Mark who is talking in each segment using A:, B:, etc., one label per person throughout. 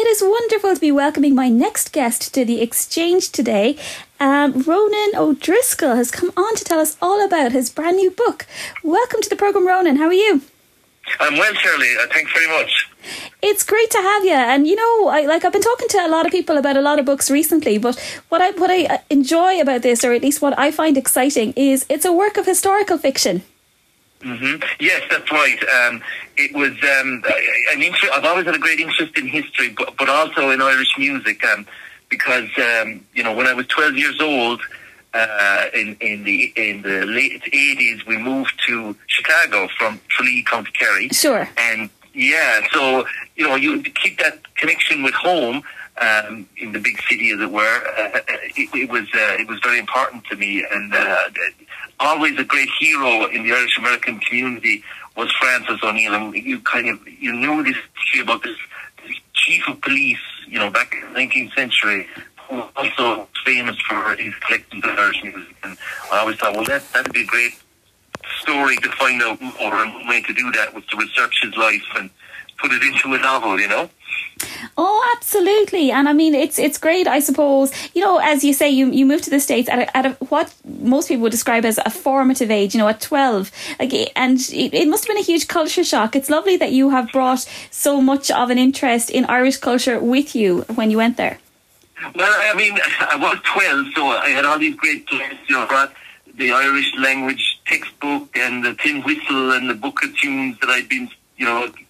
A: it is wonderful to be welcoming my next guest to the exchange today. Ronan O'Driscoll has come on to tell us all about his brand new book. Welcome to the programme, Ronan. How are you?
B: I'm well, Shirley. Thanks very much.
A: It's great to have you. And, you know, I've been talking to a lot of people about a lot of books recently, but what I enjoy about this, or at least what I find exciting, is it's a work of historical fiction.
B: Mm-hmm. Yes, that's right. It was an interest. I've always had a great interest in history, but also in Irish music, because when I was 12 years old, in the late 80s, we moved to Chicago from Tralee, County Kerry.
A: Sure.
B: And so you keep that connection with home. In the big city, as it were, it was very important to me, and always a great hero in the Irish American community was Francis O'Neill. And you knew this history about this chief of police, back in the 19th century, who was also famous for his collections of Irish music. And I always thought, well, that'd be a great story to find out, or a way to do that was to research his life and put it into a novel,
A: Oh, absolutely. And I mean, it's great, I suppose. As you say, you moved to the States at what most people would describe as a formative age, at 12. And it must have been a huge culture shock. It's lovely that you have brought so much of an interest in Irish culture with you when you went there.
B: Well, I mean, I was 12, so I had all these great players, brought the Irish language textbook and the tin whistle and the book of tunes that I'd been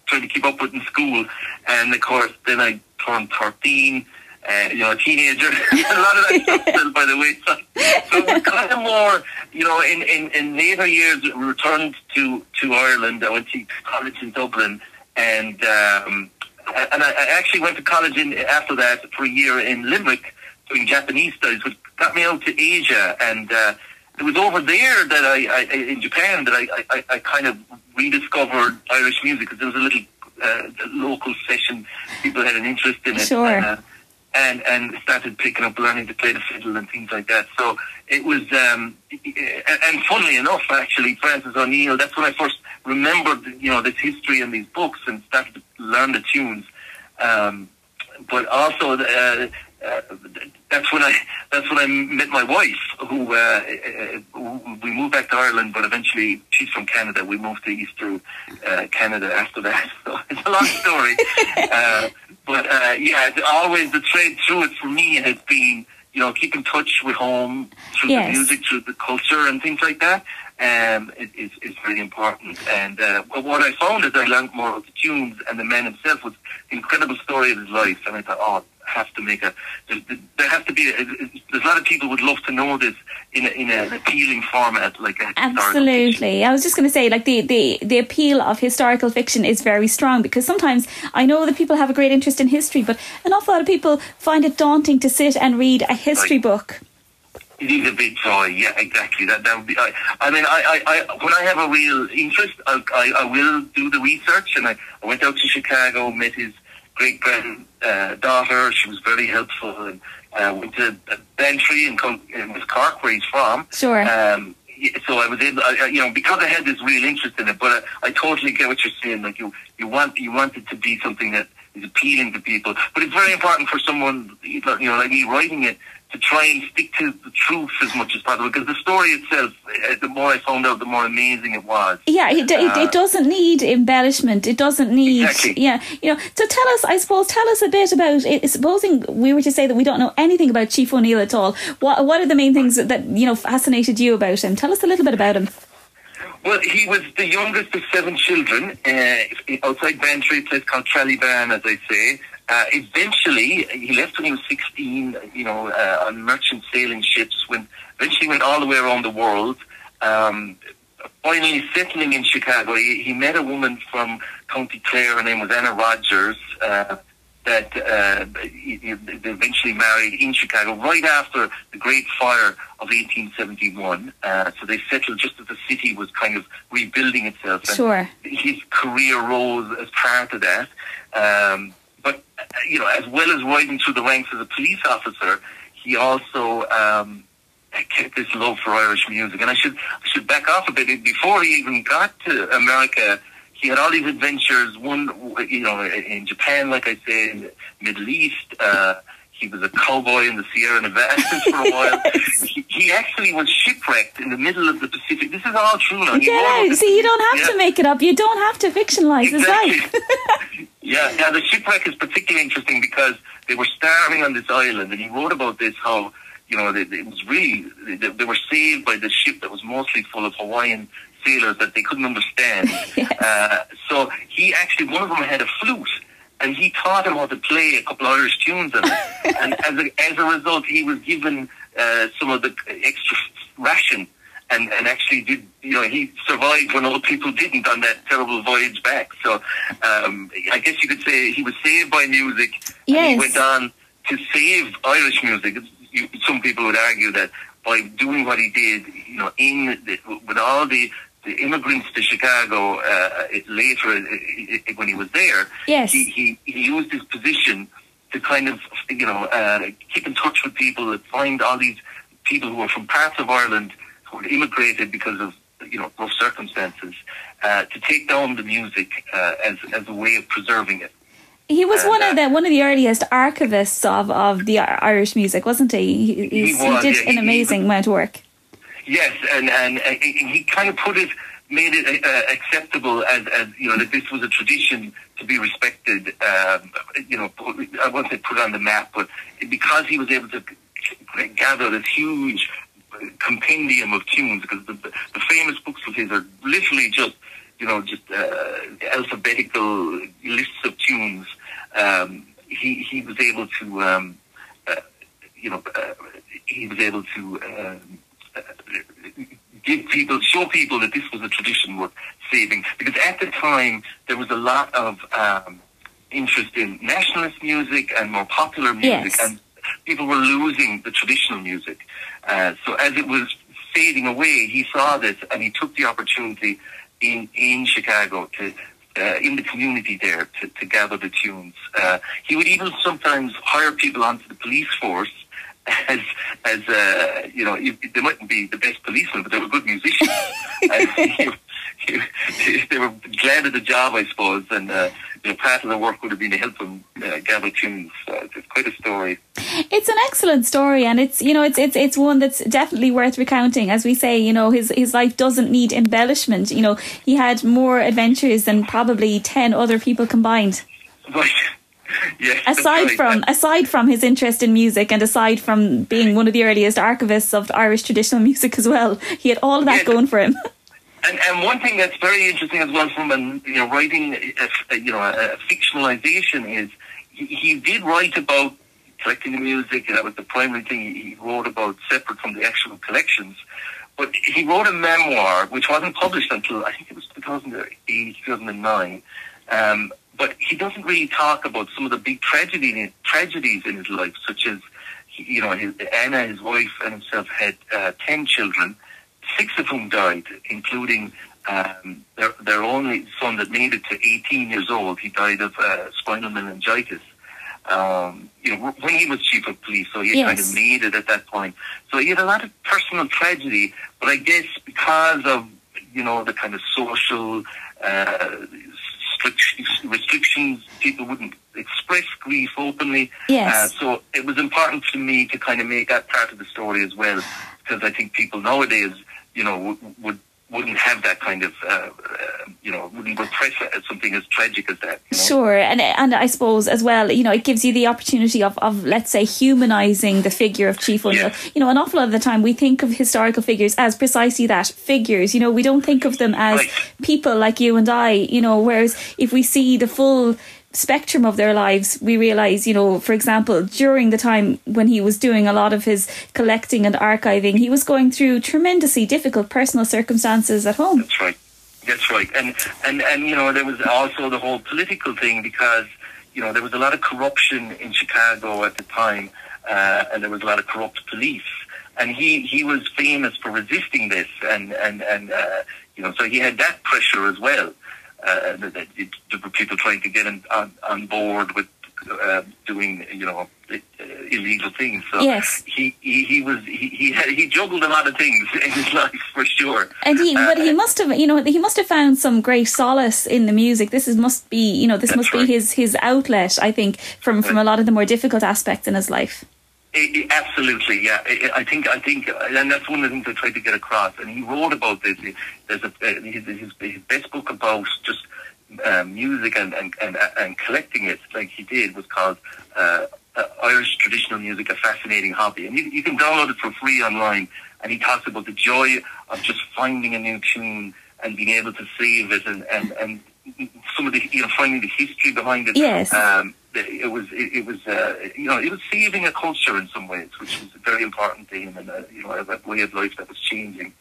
B: trying to keep up with in school. And of course, then I turned 13, a teenager. A lot of that stuff fell by the wayside. So it was kind of more, in later years, we returned to Ireland. I went to college in Dublin, and I actually went to college after that for a year in Limerick doing Japanese studies, which got me out to Asia. And it was over there that in Japan that I kind of rediscovered Irish music, because there was a little local session. People had an interest in it.
A: Sure.
B: And started picking up, learning to play the fiddle and things like that. So it was, and funnily enough, actually, Francis O'Neill, that's when I first remembered, this history in these books and started to learn the tunes. But also, that's when I met my wife, who we moved back to Ireland, but eventually she's from Canada. We moved to Eastern Canada after that. So it's a long story. But always the thread through it for me has been, keep in touch with home through the music, through the culture and things like that. It's very important. And what I found as I learned more of the tunes and the man himself was the incredible story of his life. And I thought, have to make there has to be there's a lot of people would love to know this in an appealing format, like a
A: absolutely. I was just going to say, like, the appeal of historical fiction is very strong, because sometimes I know that people have a great interest in history, but an awful lot of people find it daunting to sit and read a history book.
B: It is a big joy, yeah, exactly. That would be. I mean, when I have a real interest, I will do the research, and I went out to Chicago, met his great granddaughter. She was very helpful, and went to Bantry in West Cork, where he's from.
A: Sure.
B: So I was able, because I had this real interest in it. But I totally get what you're saying. Like you want it to be something that is appealing to people. But it's very important for someone, like me, writing it, to try and stick to the truth as much as possible, because the story itself, the more I found out, the more amazing it was.
A: Yeah, it doesn't need embellishment. It doesn't need...
B: Exactly.
A: Yeah, so tell us a bit about it. Supposing we were to say that we don't know anything about Chief O'Neill at all, what are the main things that fascinated you about him? Tell us a little bit about him.
B: Well, he was the youngest of 7 children, outside Bantry, a place called Trallyban, as I say. Eventually, he left when he was 16, on merchant sailing ships, eventually went all the way around the world. Finally settling in Chicago, he met a woman from County Clare. Her name was Anna Rogers, that they eventually married in Chicago right after the Great Fire of 1871. So they settled just as the city was kind of rebuilding itself. And
A: sure.
B: His career rose as part of that. But, as well as rising through the ranks as a police officer, he also kept this love for Irish music. And I should back off a bit. Before he even got to America, he had all these adventures. One, in Japan, like I say, in the Middle East. He was a cowboy in the Sierra Nevadas for a while. He actually was shipwrecked in the middle of the Pacific. This is all true now.
A: Yeah, see, you don't have to make it up. You don't have to fictionalise his life.
B: Yeah, the shipwreck is particularly interesting because they were starving on this island, and he wrote about this, how, it was really, they were saved by this ship that was mostly full of Hawaiian sailors that they couldn't understand.
A: Yes.
B: So he actually, one of them had a flute, and he taught him how to play a couple of Irish tunes on it. And as a result, he was given some of the extra ration, and actually did, he survived when other people didn't on that terrible voyage back. So I guess you could say he was saved by music,
A: yes.
B: And he went on to save Irish music. Some people would argue that by doing what he did, with all the immigrants to Chicago later when he was there,
A: yes.
B: he used his position to kind of keep in touch with people, find all these people who were from parts of Ireland who had immigrated because of rough circumstances, to take down the music as a way of preserving it.
A: He was one of the earliest archivists of the Irish music, wasn't he? He did an amazing amount of work.
B: Yes, and he kind of made it acceptable as that this was a tradition to be respected. I won't say put on the map, but because he was able to gather this huge compendium of tunes, because the famous books of his are literally just alphabetical lists of tunes. He was able to show people that this was a tradition worth saving, because at the time there was a lot of interest in nationalist music and more popular music, yes. And people were losing the traditional music. So as it was fading away, he saw this, and he took the opportunity in Chicago to in the community there to gather the tunes. He would even sometimes hire people onto the police force as they mightn't be the best policemen, but they were good musicians. They were glad of the job, I suppose, and part of the work would have been to help them gather tunes. It's quite a story.
A: It's an excellent story, and it's one that's definitely worth recounting. As we say, his life doesn't need embellishment. He had more adventures than probably 10 other people combined.
B: Right. Yes,
A: aside from his interest in music, and aside from being one of the earliest archivists of Irish traditional music as well, he had all of that going for him.
B: And one thing that's very interesting as well from writing a fictionalization is he did write about collecting the music, and that was the primary thing he wrote about, separate from the actual collections. But he wrote a memoir which wasn't published until I think it was 2008, 2009. But he doesn't really talk about some of the big tragedies in his life, such as, Anna, his wife, and himself had 10 children, 6 of whom died, including their only son that made it to 18 years old. He died of spinal meningitis. When he was chief of police, so he kind of made it at that point. So he had a lot of personal tragedy, but I guess because of, the kind of social restrictions, people wouldn't express grief openly.
A: Yes.
B: So it was important to me to kind of make that part of the story as well, because I think people nowadays, wouldn't have that kind of, wouldn't repress it as something as tragic as that.
A: Sure, and I suppose as well, it gives you the opportunity of let's say, humanising the figure of Chief O'Neill. Yeah. An awful lot of the time we think of historical figures as precisely that, figures. We don't think of them as people like you and I. Whereas if we see the full spectrum of their lives, we realise, for example, during the time when he was doing a lot of his collecting and archiving, he was going through tremendously difficult personal circumstances at home.
B: That's right. And there was also the whole political thing, because there was a lot of corruption in Chicago at the time, and there was a lot of corrupt police, and he was famous for resisting this, and so he had that pressure as well. There were people trying to get him on board with doing, illegal things. So
A: yes.
B: he juggled a lot of things in his life for sure.
A: And he must have found some great solace in the music. This must be his outlet, I think, from a lot of the more difficult aspects in his life.
B: Absolutely, yeah. I think, and that's one of the things I tried to get across. And he wrote about this. There's his best book about just music and collecting it, like he did, was called Irish Traditional Music: A Fascinating Hobby. And you can download it for free online. And he talks about the joy of just finding a new tune and being able to save it, and some of the finding the history behind it.
A: Yes.
B: It was saving a culture in some ways, which was very important to him, and a way of life that was changing.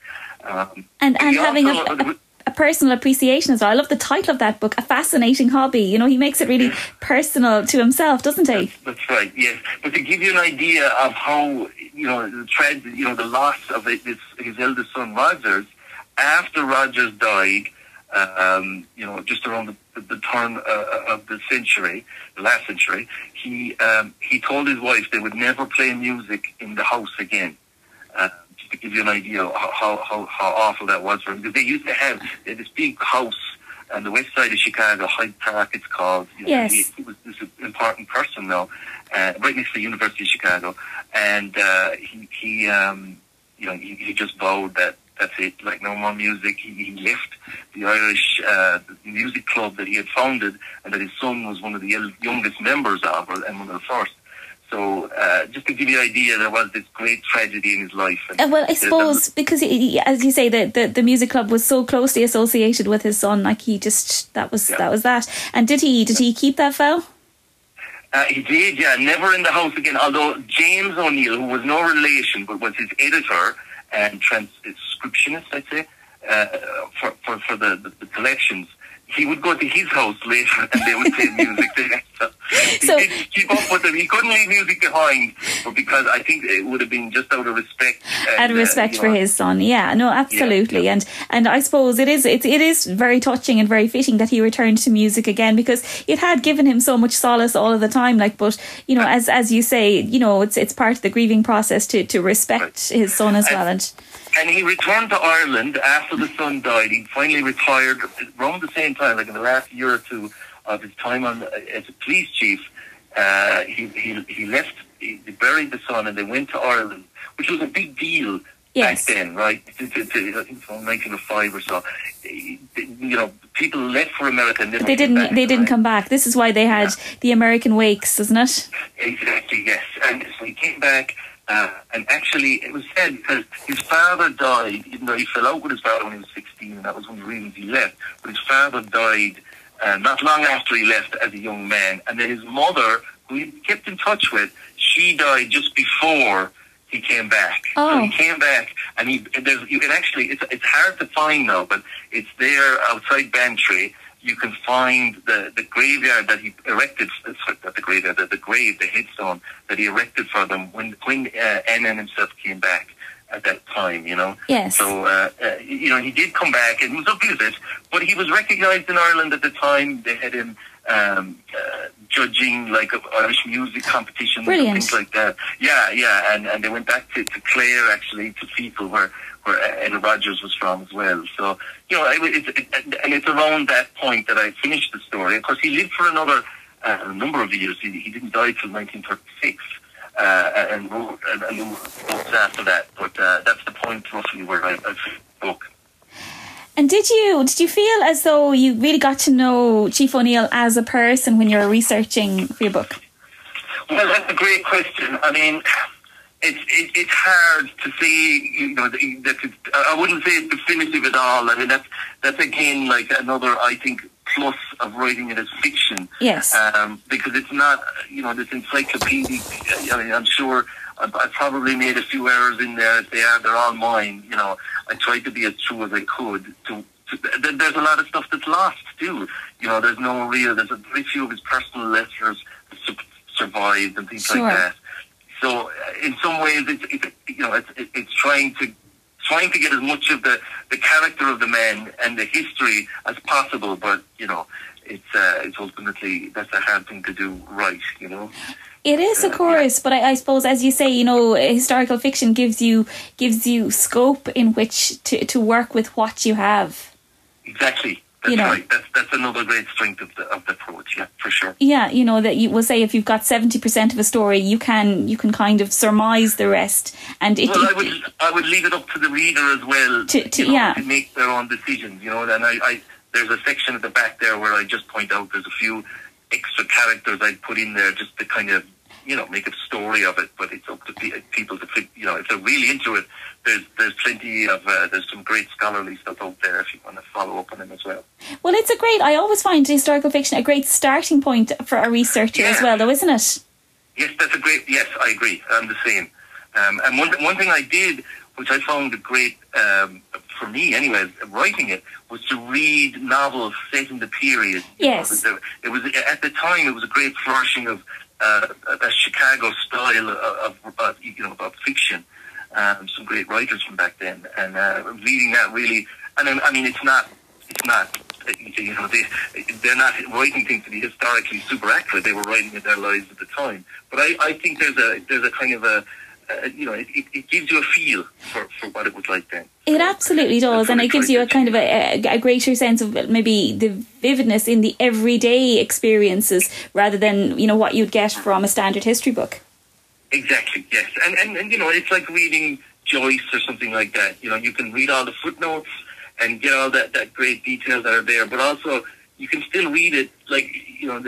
A: And having a personal appreciation as well. I love the title of that book, A Fascinating Hobby. He makes it really personal to himself, doesn't he?
B: That's right, yes. But to give you an idea of how, the loss of his eldest son, Rogers, after Rogers died, just around the turn of the last century, he told his wife they would never play music in the house again. Just to give you an idea of how awful that was for him. Because they used to have this big house on the west side of Chicago, Hyde Park it's called.
A: Yes.
B: He was this important person now, right next to the University of Chicago. And he just vowed that that's it, like no more music. He left the Irish music club that he had founded and that his son was one of the youngest members of, and one of the first. So just to give you an idea, there was this great tragedy in his life.
A: Well, I suppose because, as you say, the music club was so closely associated with his son, like that was that. And did he keep that vow?
B: He did, yeah. Never in the house again. Although James O'Neill, who was no relation but was his editor and transcriptionist, I'd say, for the collections, he would go to his house later and they would play music there. So he did keep up with them. He couldn't leave music behind, but because I think it would have been just out of respect.
A: Out of respect for his son, yeah, no, absolutely. Yeah. And I suppose it is very touching and very fitting that he returned to music again, because it had given him so much solace all of the time. But as you say, it's part of the grieving process to respect his son as well.
B: And he returned to Ireland after the son died. He finally retired around the same time, like in the last year or two of his time as a police chief. He left, he buried the son, and they went to Ireland, which was a big deal back then, right? I think from 1905 or so. People left for America and
A: they didn't come back. This is why they had the American Wakes, isn't it?
B: Exactly, yes. And so he came back. And actually, it was said because his father died, even though he fell out with his father when he was 16, and that was one of the reasons he left. But his father died not long after he left as a young man. And then his mother, who he kept in touch with, she died just before he came back.
A: Oh.
B: So he came back, and it's hard to find now, but it's there outside Bantry. You can find the graveyard that he erected, the grave, the headstone that he erected for them when N.N. himself came back at that time,
A: Yes.
B: So, he did come back and he was a visit, but he was recognised in Ireland at the time. They had him judging like Irish music competitions.
A: Brilliant.
B: And things like that. Yeah, and they went back to Clare, actually, to people where Ed Rogers was from as well. So, it's around that point that I finished the story. Of course, he lived for another number of years. He didn't die till 1936, and wrote a number of books after that. But that's the point roughly where I finished the book.
A: And did you feel as though you really got to know Chief O'Neill as a person when you were researching for your book?
B: Well, that's a great question. I mean, it's hard to say, I wouldn't say it's definitive at all. I mean, that's again like another, I think, plus of writing it as fiction.
A: Yes.
B: Because it's not, this encyclopedic, I mean, I'm sure I probably made a few errors in there. If they're all mine. I tried to be as true as I could. There's a lot of stuff that's lost too. There's very few of his personal letters that survived and things like that. So in some ways, it's trying to get as much of the character of the man and the history as possible. But it's it's ultimately, that's a hard thing to do right, you know.
A: It is, of course, but I suppose, as you say, you know, historical fiction gives you scope in which to work with what you have.
B: Exactly. That's right. That's another great strength of the approach. Yeah, for sure.
A: Yeah, you know, that you will say if you've got 70% of a story, you can kind of surmise the rest. And
B: I would leave it up to the reader as well to make their own decisions. You know, and I there's a section at the back there where I just point out there's a few extra characters I'd put in there just to kind of, you know, make a story of it. But it's up to people to fit, you know, if they're really into it. There's plenty of there's some great scholarly stuff out there if you want to follow up on them as well.
A: Well, I always find historical fiction a great starting point for a researcher as well, though, isn't it?
B: Yes, yes, I agree. I'm the same. And one thing I did, which I found great for me anyway, writing it, was to read novels set in the period.
A: Yes.
B: It was at the time it was a great flourishing of a Chicago style of fiction. Some great writers from back then, and reading that really, and I mean, it's not, you know, they're not writing things to be historically super accurate. They were writing in their lives at the time. But I think there's a kind of you know, it gives you a feel for what it was like then.
A: It absolutely does, and it gives you a kind of a greater sense of maybe the vividness in the everyday experiences rather than, you know, what you'd get from a standard history book.
B: Exactly, yes. And you know, it's like reading Joyce or something like that. You know, you can read all the footnotes and get all that great details that are there, but also you can still read it like, you know,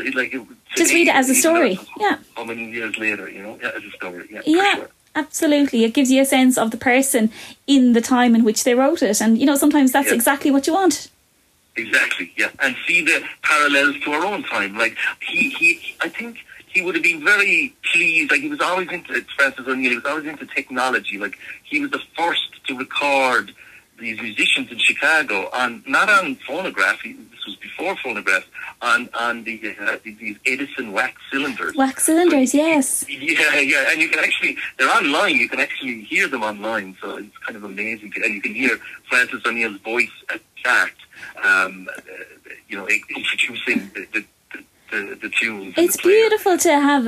A: just read it as a story. Yeah.
B: How many years later, you know, as a story. Yeah.
A: Yeah. Sure. Absolutely. It gives you a sense of the person in the time in which they wrote it. And, you know, sometimes that's exactly what you want.
B: Exactly, yeah. And see the parallels to our own time. Like, I think he would have been very pleased. Like, he was always into, Francis O'Neill, he was always into technology. Like, he was the first to record these musicians in Chicago not on phonograph, this was before phonograph, on these Edison wax cylinders.
A: Wax cylinders, yes.
B: Yeah, and you can actually, they're online, you can actually hear them online, so it's kind of amazing. And you can hear Francis O'Neill's voice at chat, you know, introducing the tunes.
A: It's beautiful to have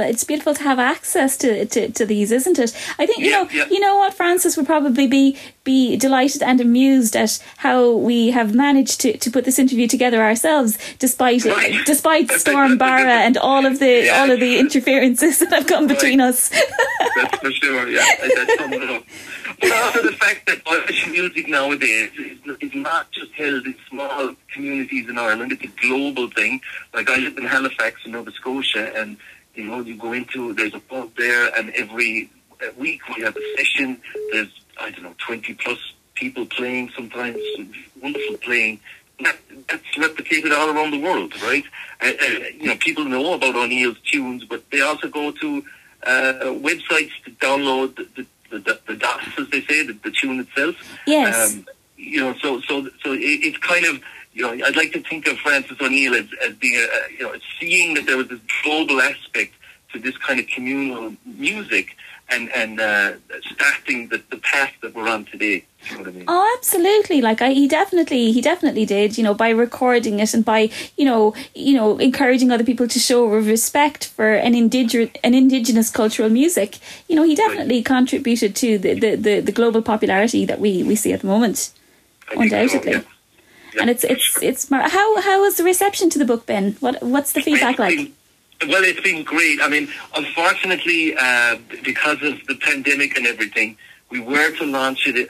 A: access to these, isn't it? I think you know what, Francis would probably be delighted and amused at how we have managed to put this interview together ourselves, despite Storm Barra and all of the interferences that have come between us.
B: That's for sure. Yeah, that's something else. But also the fact that Irish music nowadays is not just held in small communities in Ireland, it's a global thing. Like, I live in Halifax in Nova Scotia, and, you know, there's a pub there, and every week we have a session. There's, 20 plus people playing, sometimes wonderful playing. That's replicated all around the world, right? You know, people know about O'Neill's tunes, but they also go to websites to download the DOS, as they say, the tune itself.
A: Yes.
B: You know, so it's kind of, you know, I'd like to think of Francis O'Neill as being, you know, seeing that there was this global aspect to this kind of communal music and starting the path that we're on today. You know what I mean?
A: Oh, absolutely. Like, he definitely did, you know, by recording it and by, you know, encouraging other people to show respect for an indigenous cultural music. You know, he definitely contributed to the global popularity that we see at the moment. Undoubtedly. So, yeah. Yeah, and it's how has the reception to the book been? What's the feedback like?
B: Well, it's been great. I mean, unfortunately, because of the pandemic and everything, we were to launch it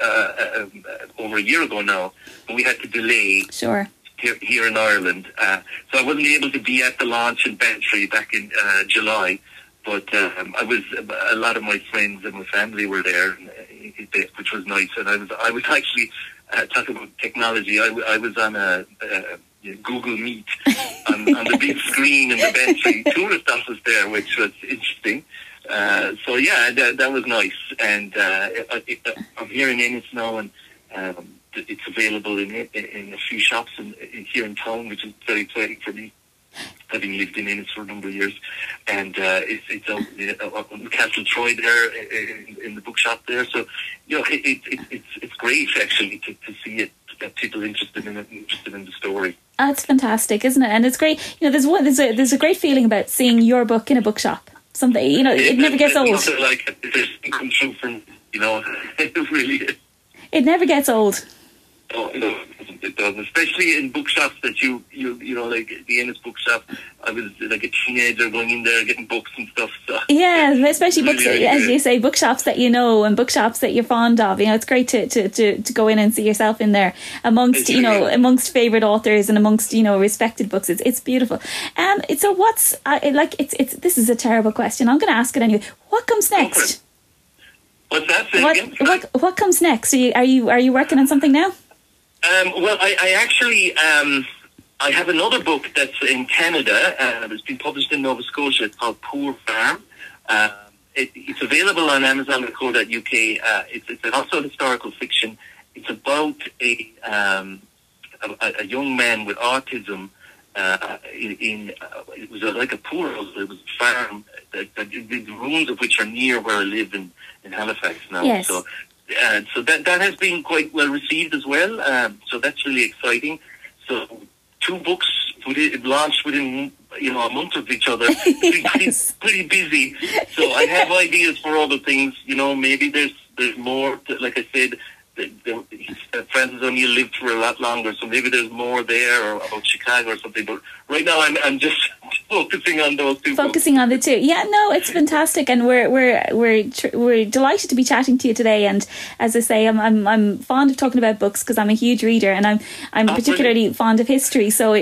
B: over a year ago now, but we had to delay.
A: Sure.
B: Here in Ireland, so I wasn't able to be at the launch in Bantry back in July. But a lot of my friends and my family were there, which was nice. And I was actually talking about technology. I was on a Google Meet on the big screen in the Bantry tourist office there, which was interesting. So yeah, that was nice. And I'm here in Ennis now, and it's available in a few shops here in town, which is very exciting for me, having lived in Ennis for a number of years. And it's out in Castle Troy there in the bookshop there. So, you know, it's great actually to see it, that people interested in it, interested in the story.
A: That's fantastic, isn't it? And it's great. There's a great feeling about seeing your book in a bookshop. Something, it never gets old.
B: Like there's come true from, it really is.
A: It never gets old.
B: Oh, no, it doesn't. Especially in bookshops that like the Ennis bookshop. I was like a teenager going in there getting books and stuff. So.
A: Yeah, especially books, really, as you say, bookshops that and bookshops that you're fond of. It's great to go in and see yourself in there amongst amongst favourite authors and amongst respected books. It's beautiful. So what's this is a terrible question. I'm going to ask it anyway. What comes next?
B: What's that?
A: What comes next? Are you working on something now?
B: Well, I actually I have another book that's in Canada. It's been published in Nova Scotia. It's called Poor Farm. It's available on Amazon.co.uk. It's also historical fiction. It's about a young man with autism. It was like a poor house. It was a farm, the ruins of which are near where I live in Halifax now.
A: Yes.
B: So that has been quite well received as well. So that's really exciting. So 2 books launched within a month of each other. It's pretty busy. So I have ideas for other things. Maybe there's more. Like I said, Francis O'Neill lived for a lot longer, so maybe there's more there, or about Chicago or something. But right now, I'm just focusing on those 2.
A: Focusing on the 2. Yeah, no, it's fantastic, and we're delighted to be chatting to you today. And as I say, I'm fond of talking about books because I'm a huge reader, and I'm particularly fond of history. So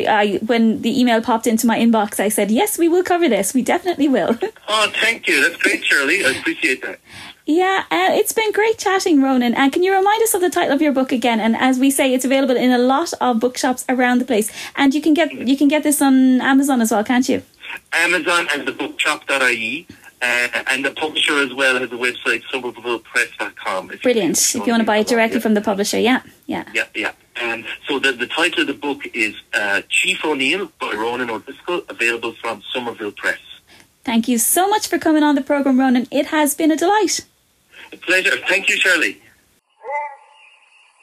A: when the email popped into my inbox, I said, yes, we will cover this. We definitely will.
B: Oh, thank you. That's great, Shirley. I appreciate that.
A: Yeah, it's been great chatting, Ronan. And can you remind us of the title of your book again? And as we say, it's available in a lot of bookshops around the place. And you can get this on Amazon as well, can't you?
B: Amazon and the bookshop.ie. And the publisher as well has a website, somervillepress.com.
A: Brilliant. If you want to buy it directly from the publisher, yeah.
B: And so the title of the book is Chief O'Neill by Ronan O'Driscoll, available from Somerville Press.
A: Thank you so much for coming on the programme, Ronan. It has been a delight.
B: A pleasure. Thank you, Shirley.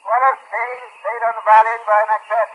C: Well, stayed on the violin by Macbeth.